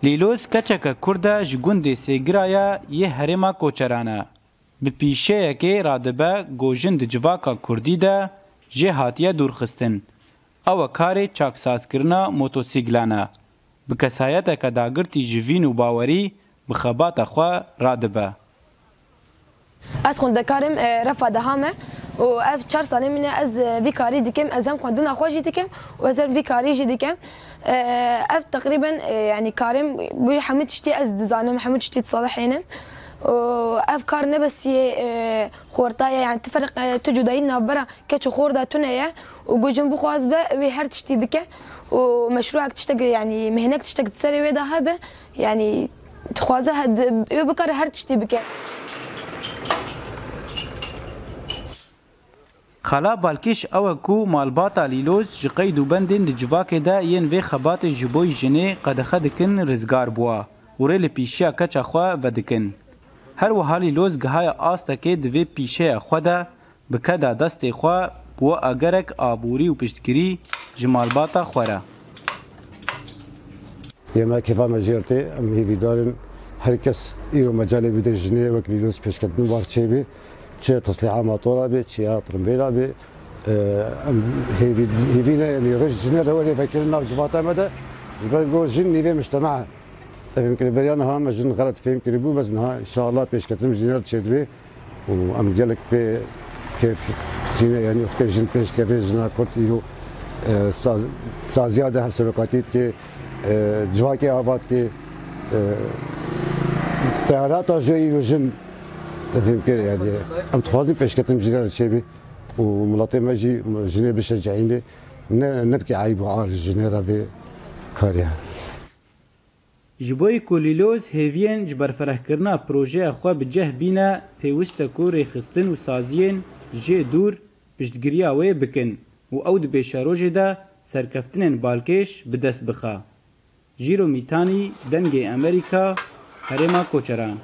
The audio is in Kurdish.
Lîloz keçeke Kurd e ji gundê Sêgiraya yê herêma Koçeran e. Bi pîşeyekê radibe ku jin di civaka Kurdî de jê hatiye dûrxistin. Ew e karê çaksazkirina motosîklan e. Bi kesayeteke dagirtî ji vîn û bawerî bi xebata xwe radibe. Ez xwendekar im, refa deha me û ev çar salên min e ez vî karî dikim. Ez hem xwendina xwe jî dikim û ez hem vî karî jî dikim. Ev teqrîben yanî karêm bûye hemû tiştî ez dizanim, hemû tiştî disalihênim û ev kar ne bes yê xorta ye yani ti ferq tu cudayî di navbera keç û xor de tune ye û ku jin bixwaz be wê her tiştî bike û meşrûek tiştek yanî mihnek tiştek di serê wê de hebe yanî dixwaze wê bikare her tiştî bike. Xala balkêş ew e ku malbata Lîloz ji qeyd û bendên di civakê de yên vê xebatê ji bo jinê qedexe dikin rizgar bûa û rê li pîşeya keça xwe vedikin. Her wiha Lîloz gihaya astekê di vê pîşeya xwe de bi keda destê xwe bûa egerek aborî û piştgirî ji malbata xwe re. Yê me kêfa me jêr tê, em hêvîdar in her kes îro mecalê bide jinê wek Lîloz pêşketin war çêbê. Çi teslîha motora bê, çi ya trimbêla bê. Em hêvî hêvî ne yanî rêj jinê re were vekirin nav civata me de. Ji ber ku jin nîvê mujtema e. Te fêm kirî beriya niha me jin xelet fêm kiribû bes niha înşallah pêşketin jinê re çêdibe û em gelek pê kêf jîne yanî wextê jin pêş dikeve jina Kurd îro saziya de hevserokatî dike civakê ava dike. Teherata ji îro jin Te fêm kir yani em dixwazin pêşketin jinê re çêbê û miletê me jî jinê bişeceînê ne ne bike eyb û ar ji jinê re vê karê. Ji bo ku Lîloz hêviyên ji berferehkirina projeya xwe bi cih bîne pêwist e ku rêxistin û saziyên jê dûr piştgiriya wê bikin û ew di pêşerojê de serkeftinên balkêş bi dest bixe. Jîro Mîtanî, Dengê Amerîka, Herêma Koçeran.